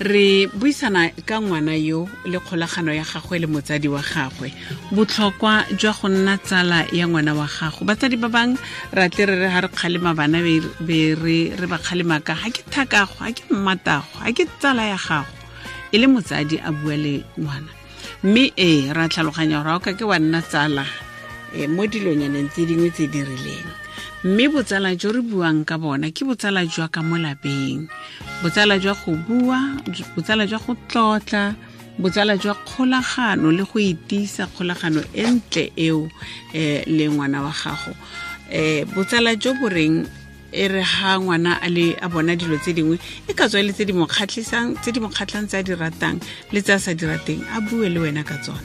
Re buisana ka ngwana yo le kgolagano ya gagwe le motsadi wa gagwe, botlhokwa jwa go nna tsala ya ngwana wa gago. Batsadi ba bangwe ra tle re re ga re kgalema bana be re ba kgalema ka ga ke thakago, ga ke mmatago, ga ke tsala ya gago, e le motsadi a bua le ngwana. Mme ee, ra tlhaloganya gore ga o ka ke wa nna tsala mo dilonyaneng tse dingwe tse di rileng. Mme botsala jo re buang ka bona ke botsala jwa ka mo lapeng, botsala jwa go bua, botsala jwa go tlotla, botsala jwa kgolagano le go itisa kgolagano e ntle eo le ngwana wa gago. Botsala jo bo reng e re ha ngwana a le a bona dilo tse dingwe e ka tswa e le tse di mo kgatlhisang, tse di mo kgatlhang, tse a di ratang le tse a sa di rateng, a bue le wena ka tsona.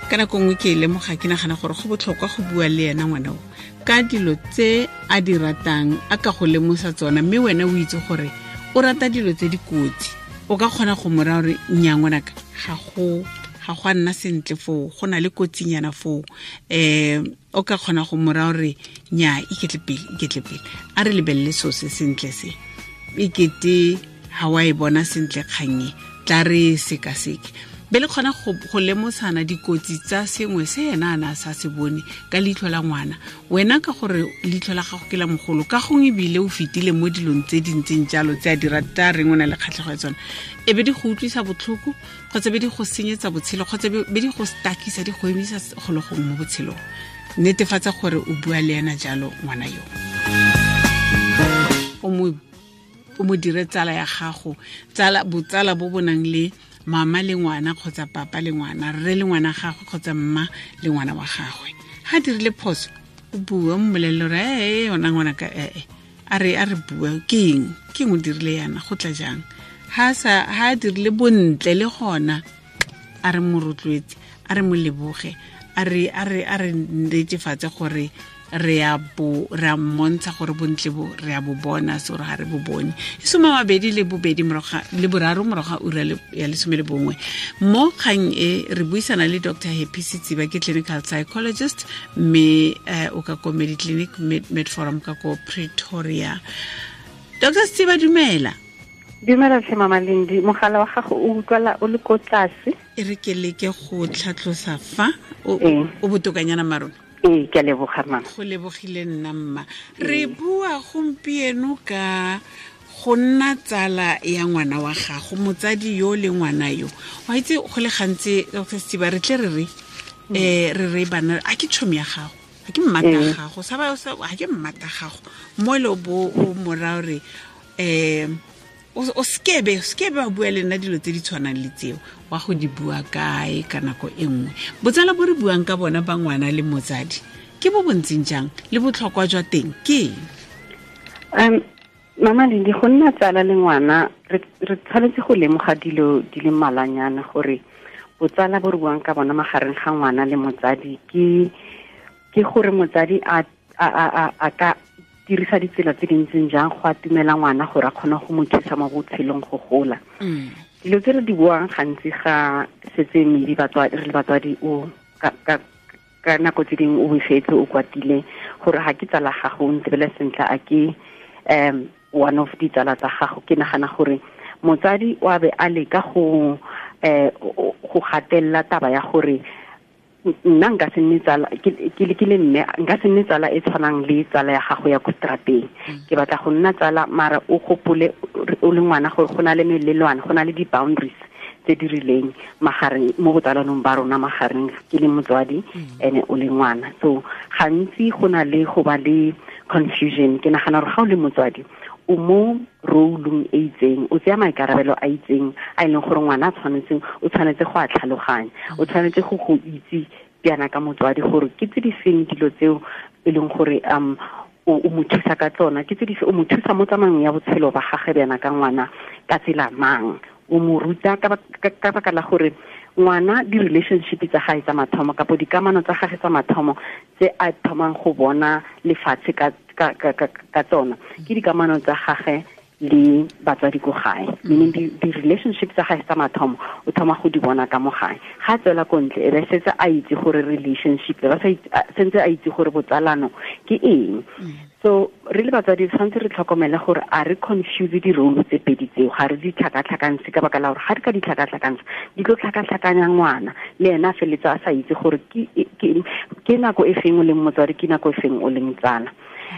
Ka nako nngwe ke e lemoga, ke nagana gore go botlhokwa go bua le ena ngwana o ka dilo tse a di ratang, a ka go lemosa tsona, mme wena o itse gore o rata dilo tse di kotsi. O ka kgona go mo raya gore nnyaa ngwanaka, ga go a nna sentle foo, go na le kotsinyana foo. O ka kgona go mo raya gore nnyaa, iketle pele, iketle pele, a re lebelele seo se sentle se, ekete ga wa e bona sentle kgang e, tla re sekaseke. Be le kgona go lemosana dikotsi tsa sengwe se ena a ne a sa se bone ka leitlho la ngwana. Wena ka gore leitlho la gago ke la mogolo, ka gongwe ebile o fetile mo dilong tse di ntseng jalo tse a di rata, reng o na le kgatlhego ya tsona, e be di go utlwisa botlhoko kgotsa be di go senyetsa botshelo kgotsa be di go stakisa, di go emisa golo gongwe mo botshelong. Netefatsa gore o bua le ena jalo ngwana yo, o mo dire tsala ya gago, botsala bo bo nang le mama le ngwana kgotsa papa le ngwana, rre le ngwana gagwe kgotsa mma le ngwana wa gagwe. Ha dirile phoso, o bue, o mmolelele gore ee yona ngwana ka ee, a re bue, ke eng, ke eng o dirile yana, go tla jang. Ha a dirile bontle le gona, a re mo rotloetse, a re mo leboge, a re netefatse gore re a mmontsha gore bontle bo re a bo bona, se gore ga re bo bone. E 23 morago ga ura ya 11. Mo kgang e re buisana le Dr. Happy Setsiba, ke clinical psychologist, mme o ka ko Mediclinic Medforum ka ko Pretoria. Dr. Setsiba, dumela. Dumela tlhe Mama Lindi, mogala wa gago o utlwala o le ko tlase. E re ke leke go tlhatlosa fa o botokanyana marona. Ee, ke a leboga mama. Go lebogile nna mma. Re bua gompieno ka go nna tsala ya ngwana wa gago, motsadi yo le ngwana yo. Wa itse go le gantsi Dr. Setsiba re tle re re re bana, a ke tšhomi ya gago, a ke mmata gago, sa ba a ke mmata gago. Mo le bo o mora re o skebe wa bua le nna dilo tse di tshwanang le tseo, wa go di bua kae ka nako e nngwe. Botsala bo re buang ka bona ba ngwana le motsadi ke bo bontseng jang, le botlhokwa jwa teng ke eng? Mama Lindi, go nna tsala le ngwana re tshwanetse go lemoga dilo di le mmalwanyana gore botsala bo re buang ka bona magareng ga ngwana le motsadi ke gore motsadi a ka dirisa ditsela tse dintseng jang go atumela ngwana gore a kgone go mo thusa mo botshelong go gola. Dilo tse re di buang gantsi ga setse maybe re le batswadi o ka nako tse dingwe o befetse, o kwatile gore ga ke tsala gago, o ntebele sentle, a ke one of ditsala tsa gago. Ke nagana gore motsadi o a be a leka go gatelela taba ya gore nna nka se nne tsala, ke le mme, nka se nne tsala e tshwanang le tsala ya gago ya ko strateng. Ke batla go nna tsala, mara o gopole o le ngwana gore go na le melelwane, go na le di-boundaries tse di rileng magareng mo botsalanong ba rona magareng ke le motswadi ene o le ngwana. So gantsi go na le go ba le confusion. Ke nagana gore ga o le motswadi o mo role-ong e itseng, o tsaya maikarabelo a itseng a e leng gore ngwana o tshwanetse go a tlhaloganya, o tshwanetse go itse bjana ka motswadi gore ke tse di feng dilo tseo e leng gore o mo thusa ka tsona, ke tse di o mo thusa mo tsamaong ya botshelo ba gagwe bjana ka ngwana ka tsela mang, o mo ruta ka baka la gore ngwana di-relationship tsa gae tsa mathomo kapo dikamano tsa gagwe tsa mathomo tse a thomang go bona lefatshe ka tsona ke dikamano tsa gagwe Le batswadi ko gae, meaning di-relationship tsa gae tsa mathomo o thoma go di bona ka mo gae. Ga tswela ko ntle, e be setse a itse gore relationship, ba sentse a itse gore botsalano ke eng. So re le batswadi tshwanetse re tlhokomele gore a re confuse di-role tse pedi tseo, ga re di tlhakatlhakantshe, ka baka la gore ga re ka di tlhakatlhakantsha di tlo tlhakatlhakanya ngwana, le ena a feletse a sa itse gore ke nako e feng o leng motswadi, ke nako e feng o leng tsala.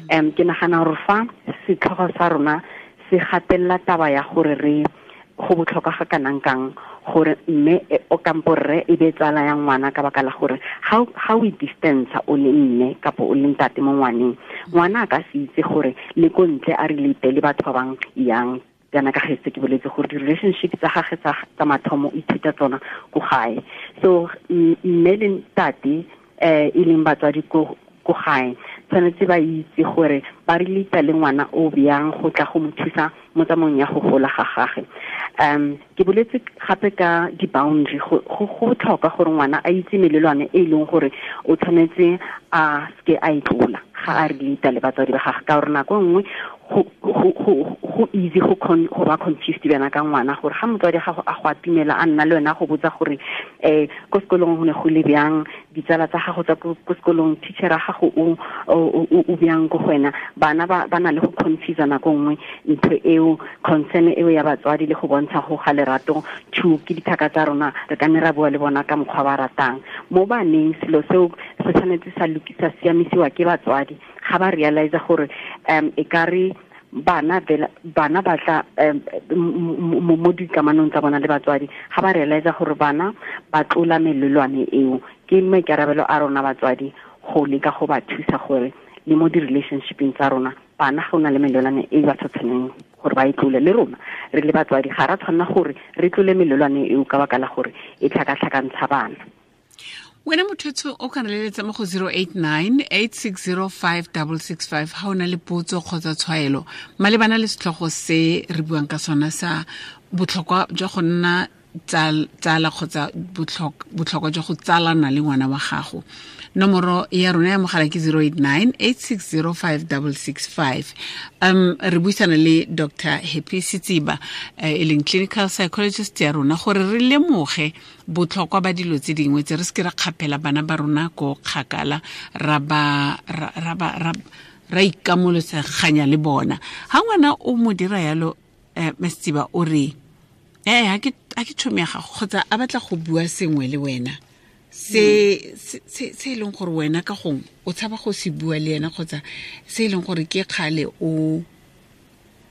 Ke nagana gore fa setlhogo sa rona se gatelela taba ya gore re go botlhokwa ga kanang kang gore mme o kampo rre e be tsala ya ngwana, ka baka la gore ga o distance o le mme kapo o le ntate mo ngwaneng, ngwana a ka se itse gore le ko ntle a relate le batho ba bang yang. Kana ka getse ke boletse gore di-relationship tsa gagwe tsa mathomo o ithuta tsona ko gae. So mme le ntate e leng batswadi ko gae tshwanetse ba itse gore ba relate le ngwana o bjang go tla go mo thusa mo tsamaong ya go gola ga gagwe. Ke boletse gape ka di-boundary, go botlhokwa gore ngwana a itse melelwane e leng gore o tshwanetse a seke a e tlola ga a relate le batswadi ba gagwe, ka gore nako nngwe go easy go ba confused bana ka ngwana, gore ga motswadi gago a go atumela a nna le wena go botsa gore ko sekolong go ne go le bjang, ditsala tsa gago tsa ko sekolong, teacher ya gago o bjang ko go wena. Bana ba na le go confuse nako nngwe ntho eo, concern eo ya batswadi le go bontsha go ga lerato to ke dithaka tsa rona, re ka nne ra bua le bona ka mokgwa ba ratang. Mo baneng selo seo se tshwanetse sa lokisa siamisiwa ke batswadi ga ba realize gore e ka re bana ba tla mo dikamanong tsa bona le batswadi, ga ba realize gore bana ba tlola melelwane eo, ke maikarabelo a rona batswadi go leka go ba thusa gore le mo di-relationshipeng tsa rona bana ga o na le melelwane e ba sa tshwaneng gore ba e tlole, le rona re le batswadi ga ra tshwanela gore re tlole melelwane eo ka baka la gore e tlhakatlhakantsha bana. Wena motho o ka leletsa mo go 089 8605 665 ha o na le potso kgotsa tshwaelo malebana le setlhogo se re buang ka sona sa botlhokwa jwa go nna tsala kgotsa botlhokwa jwa go tsalana le ngwana wa gago. Nomoro ya rona ya mogala ke 089 8605 665. Re buisana le Dr. Happy Setsiba, e leng clinical psychologist ya rona, gore re lemoge botlhokwa ba dilo tse dingwe tse re se ke ra kgaphela bana ba rona ko kgakala, ra ba ra ikamoloseganya le bona. Ha ngwana o mo dira yalo, Setsiba o re ha ke tšhomi ya gago kgotsa a batla go bua sengwe le wena se e leng gore wena ka gongwe o tshaba go se bua le ena, kgotsa se e leng gore ke kgale o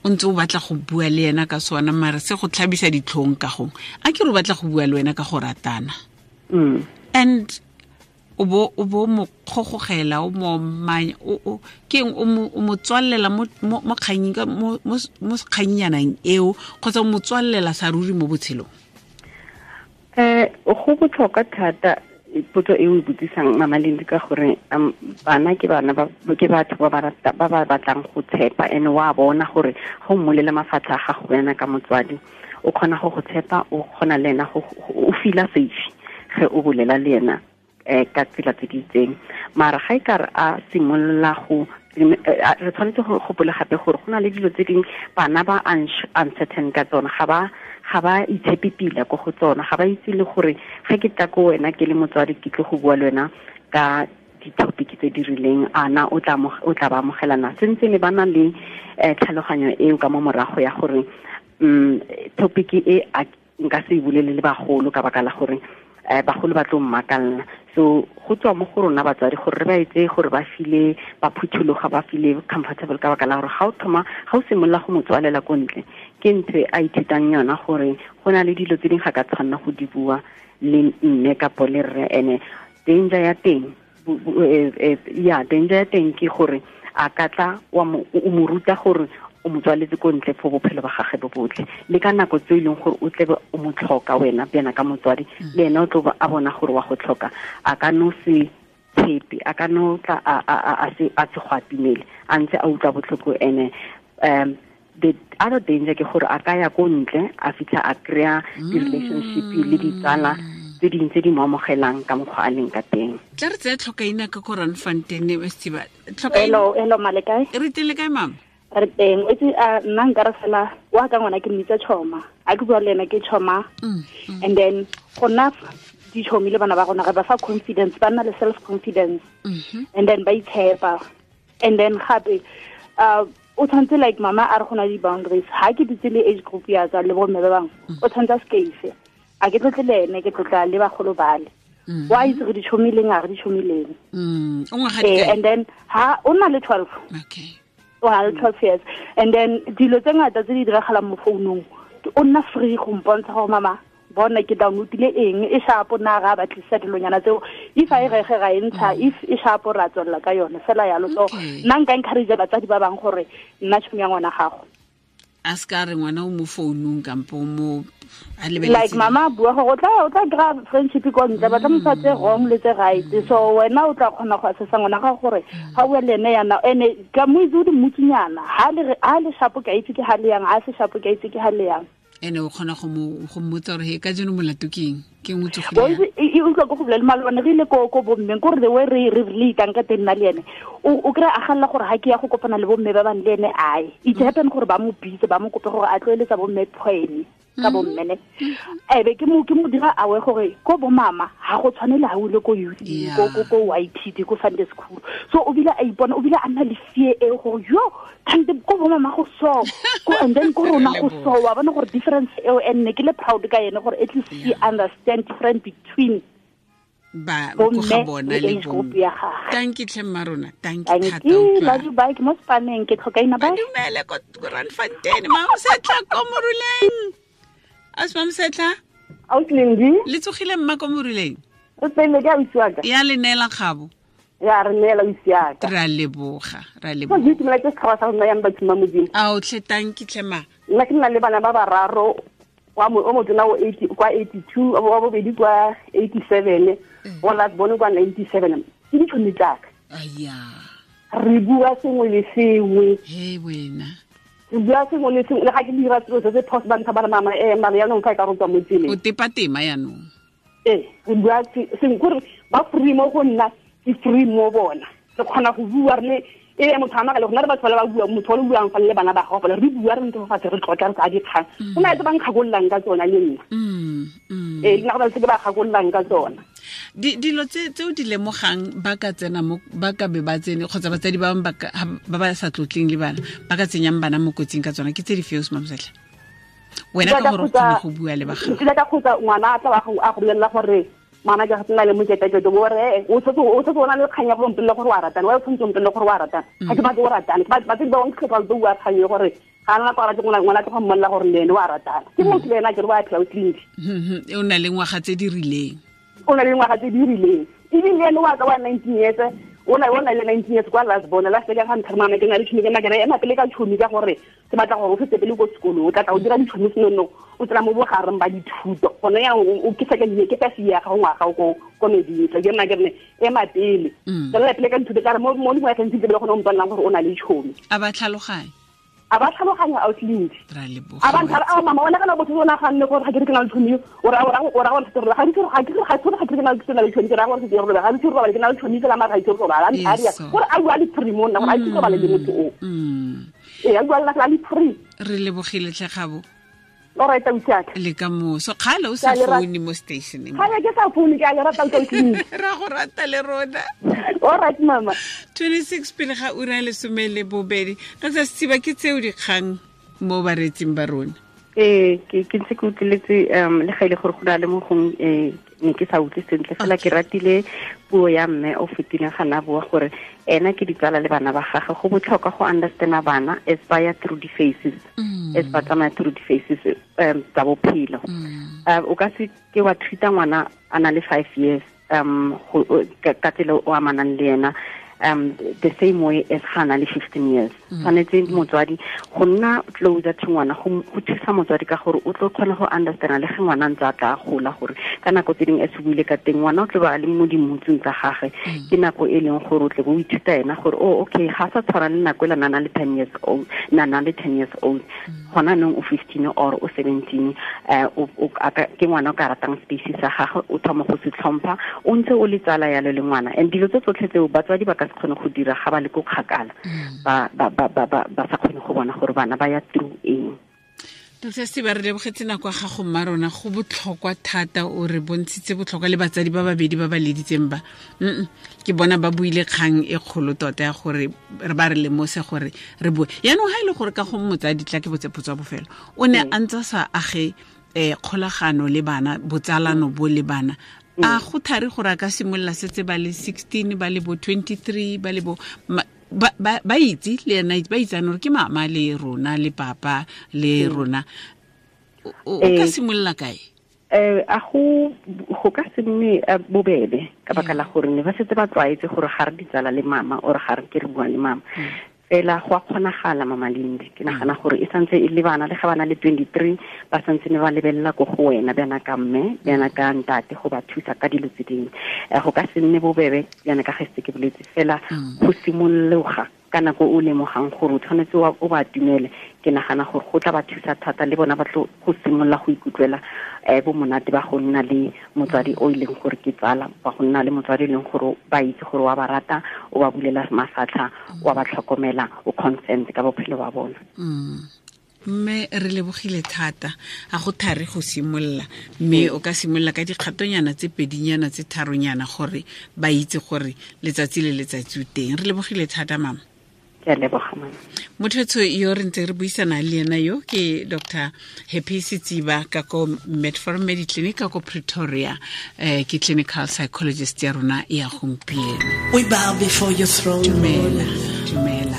ntse o batla go bua le ena ka sona, mare se go tlhabisa ditlhong ka gongwe, a ke re o batla go bua le wena ka go ratana, and o bo mo kgogogela, o mo manya, o ke eng, o mo tswallela mo kganyeng, mo kgannyanang eo, kgotsa o mo tswallela sa ruri mo botshelong? Go botlhokwa thata potso e o e botsisang Mama Lindi, ka gore bana ke bana ke batho ba ba batlang go tshepa, and wa bona gore go mmolela mafatlha a gago wena ka motswadi, o kgona go tshepa, o kgona le ena o feel-a safe ge o bolela le ena ka tsela tse di itseng. Mara ga e ka re a simolola go re tshwanetse go gopola gape gore go na le dilo tse dingwe bana ba uncertain ka tsona, ga ba itshepe pila ko go tsona, ga ba itse le gore ge ke tla ko wena ke le motswadi ke tlo go bua le wena ka di-topic tse di rileng, ana o tla ba amogelana. Sentse ne ba na le tlhaloganyo eo ka mo morago ya gore topic e nka se e bolele le bagolo ka baka la gore bagolo ba tlo mmakalla. So go tswa mo go rona batswadi gore re ba etse gore ba file ba phuthologa, ba file comfortable, ka baka la gore ga o thoma ga o simolola go mo tswalela ko ntle, ke ntho e a ithutang yona gore go na le dilo tse dingwe ga ka tshwanna go di bua le mme kapo le rre. Ene danger ya teng danger ya teng ke gore a ka tla o mo ruta gore o mo tswaletse ko ntle for bophelo ba gagwe bo botlhe, le ka nako tse e leng gore o tlebe o mo tlhoka wena bjana ka motswadi, le ena o tlo a bona gore wa go tlhoka, a ka no se tshepe, a ka no tla a se go atumele, a ntse a utlwa botlhoko. Ene the other danger ke gore a ka ya ko ntle a fitlha a kry-a di-relationship le ditsala tse dingwe tse di mo amogelang ka mokgwa a leng ka teng. Tla re tseye tlhokaina ka ko Randfontein, Setsiba. Hello, hello, male kae? Re teng le kae, mama? Re teng o itse nna nka re fela wa ka ngwana ke mmitsa tšhoma a ke bua le ena ke tšhoma and then go nna ditšhomi le bana ba rona re ba fa confidence, ba nna le self confidence and then ba itshepa. And then gape o tshwanetse like mama a re go na le di-boundaries, ha ke dutse le age group ya ka le bomme ba bangwe o tshwanetse a skeise, a ke tlotle le ene, ke tlotla le bagolo bale. Wa itse re ditšhomileng a re ditšhomileng. And then ha o na le 12. Okay. O na le 12 years. And then dilo tse ngata tse di diragalang mo founung, o nna free go mpontsha gore mama bona ke downloadile eng, e shapo na ga batlisa dilonyana tseo, if a e rege ga e ntsha, if e shapo ra tswella ka yone fela yalo. So nna nka encourage batsadi ba bang gore nna tšhomi ya ngwana gago a ska re ngwana o mo founung kampo mo a lebeletse like mama bua gore o tla kry-a friendship ko ntle, ba tla mo fa tse wrong le tse right. So wena o tla kgona go assessa ngwana gago gore ga o bua le ene yana, ene ka mo itse o di mmutsinyana, ha le shapo ke a itse ke ha le yang, ha se shapo ke a itse ke ha le yang. Ene o kgona go mmotsa gore he ka jeno molato ke eng, ke eng o tsogile? E utlwa ko go bolela malobane re ile ko bommeng, kore the way re relatang ka teng nna le ene, o kry-a a galela gore ha ke ya go kopana le bomme ba bang le ene ae. It happen gore ba mo bitse, ba mo kope gore a tloeletsa bomme poem ka bomme ne. Ebe ke mo dira awe gore ko bo mama ha go tshwane le ha o ile ko youth, ko YPD, ko Sunday school. So o bile a ipona, o bile a nna le fear e gore yo kante ko bo mama go so, ko and then ko rona go so, wa bona gore difference eo, and ne ke le proud ka yene gore at least he understand difference between ba go ga bona le bo. Thank you tlhe mma rona, thank you thata. Love you, bye. Ke mo spaneng, ke tlhoka ina bye. Dumele ko Randfontein, Mamosetla ko Moruleng. As Mamosetla? Ausi Lendi. Le tsogile mma ko Moruleng? O tsene ke ausi wa ka. Ya le neela kgabo. Ya re neela ausi ya ka. Ra leboga, ra leboga. Ke itumela ke setšhaba sa rona yang batho ba Modimo. Ao tlhe, thank you tlhe ma. Nna ke nna le bana ba bararo, wa o motona o 80 kwa 82, wa bobedi kwa 87, wa last born kwa 97. Ke ditšhomi tsaka. Aya. Re bua sengwe le sengwe. He wena. Re bua sengwe le sengwe, le ga ke dira selo se se phoso ba ntsha ba re mama mara yaanong fa e ka go tswa mo tseleng. O tepa tema yaanong. Ee, re bua sengwe kore ba free mo go nna, ke free mo bona. Re kgona go bua re le e motho a makale, go na le batho ba le ba bua, motho o le buang fa le bana ba gago fela, re bua re ntse fa fatshe re tlotla re tsaya dikgang. Go na le tse ba nkgakololang ka tsona le nna. Ee, le nna go na le tse ke ba kgakololang ka tsona. Dilo tse o di lemogang ba ka tsena mo, ba ka be ba tsene kgotsa batsadi ba bangwe ba ba sa tlotleng le bana ba ka tsenyang bana mo kotsing ka tsona, ke tse di fe o Mamosetla? Wena ka gore o kgone go bua le ba gago. Ke ka kgotsa ngwana a tla a go bolelela gore mama ke nna le moketeketo, bo re o tshotse o na le kgang ya go mpolella gore wa ratana, wa o tshwanetse o mpolelle gore wa ratana. Ga ke batle o ratane, batsadi ba bangwe ke ba bua kgang e gore ga nna kwa rate ngwana tlo go mmolelela gore le ene wa ratana. Ke motho le ena ke re wa phela o tleliniki. O na le ngwaga tse di rileng. O na le ngwaga tse di rileng. Ebile ene wa ka wa 19 years, o na le 19 years kwa last born, last year ga ntlha mama ke na le tšhomi, ke nna ke re ema pele ka tšhomi ka gore ke batla gore o fetse pele ko sekolong, o tla tla o dira ditšhomi senono, o tsena mo bogareng ba dithuto. Gone yang o ke second year, ke first year ga ngwaga ko meding, ke nna ke re ema pele. Tswelela pele ka dithuto ka re mo dingwageng tse di le gone o mpolelang gore o na le tšhomi. A ba tlhaloganya. A ba tlhaloganya ausi Lendi. Ra leboga. A ba ntlha a mama wena kana botho o naganne gore ga ke re ke na le tšhomi, o ra gore ga ke re ke na le tšhomi, ke ra gore ke robala, ga ke robala ke na le tšhomi fela mara ga ke robala. A ria gore a bua le free mo nna gore a ke robale le motho o. Ee, a bua le nna le free. Re lebogile tlhe Kgabo. All right, ausi wa ka. Le ka moso. Kgale o sa foune mo stationeng. Kgale ke sa foune, ke a le rata ausi Lendi. Ra go rata le rona. All right, mama. 26 pele ga ura ya 12. Ka tsa Setsiba ke tseo dikgang mo baretsing ba rona. Ee, ke ntse ke utlweletse le ga ile gore go na le mo gong ne ke sa utlwe sentle fela ke ratile puo ya mme o fetileng ga na bua gore ena ke ditsala le bana ba gagwe. Go botlhokwa go understanda bana as ba ya through the phases, as ba tsamaya through the phases tsa bophelo. O ka se ke wa treata ngwana a na le 5 years ka tsela o amanang le ena the same way as ga na le 15 years. Tshwanetse motswadi go nna closer to ngwana, go thusa motswadi ka gore o tlo kgona go understanda le ge ngwana ntse a tla gola, gore ka nako tse dingwe e se buile ka teng ngwana o tlo ba le mo dimutsong tsa gagwe, ke nako e leng gore o tle bo o ithuta ena gore oh okay ga sa tshwana le nako e la nana le 10 years old, nana le 10 years old. Gona nong o 15 or o 17, ke ngwana o ka ratang space sa gagwe, o thoma go se tlhompha, o ntse o le tsala yalo le ngwana. And dilo tse tsotlhe tseo batswadi ba ka se kgone go dira ga ba le ko kgakala, ba sa kgone go bona gore bana ba ya through eng. Dr. Setiba, re lebogetse nako ya gago mma rona, go botlhokwa thata, o re bontshitse botlhokwa le batsadi ba babedi ba ba leditseng ba. Ke bona ba buile kgang e kgolo tota ya gore re ba re lemose gore re bue. Yaanong ha e le gore ka go motsadi tla ke botse potso ya bofelo, o ne a ntse sa age kgolagano le bana, botsalano bo le bana, a go thari gore a ka simolola setse ba le 16, ba le bo 23, ba le bo ba itse le ena, ba itsane gore ke mama le rona le papa le rona, o ka simolola kae? A go ka se nne bobebe ka baka la gore ne ba setse ba tlwaetse gore ga re ditsala le mama or ga re ke re bua le mama. Fela go a kgonagala Mama Lindi, ke nagana gore e santse e le bana le ga bana le 23 ba santse ne ba lebelela ko go wena bjana ka mme bjana ka ntate go ba thusa ka dilo tse dingwe. Go ka se nne bobebe bjana ka ge se ke boletse, fela go simologa ka nako o lemogang gore o tshwanetse o ba atumele, ke nagana gore go tla ba thusa thata le bona ba tlo go simolola go ikutlwela bo monate ba go nna le motswadi o e leng gore ke tsala, ba go nna le motswadi e leng gore ba itse gore wa ba rata, o ba bulela mafatlha, wa ba tlhokomela, o consent ka bophelo ba bona. Mme re lebogile thata, a go thari go simolola, mme o ka simolola ka dikgatonyana tse pedinyana tse tharonyana gore ba itse gore letsatsi le letsatsi o teng. Re lebogile thata mama. Ke a leboga mama. Motho yo re ntse re buisana le ena yo ke Dr. Happy Setsiba ka ko Medforum Mediclinic ka ko Pretoria, ke clinical psychologist ya rona ya gompieno. We bow before your throne. Dumela, dumela.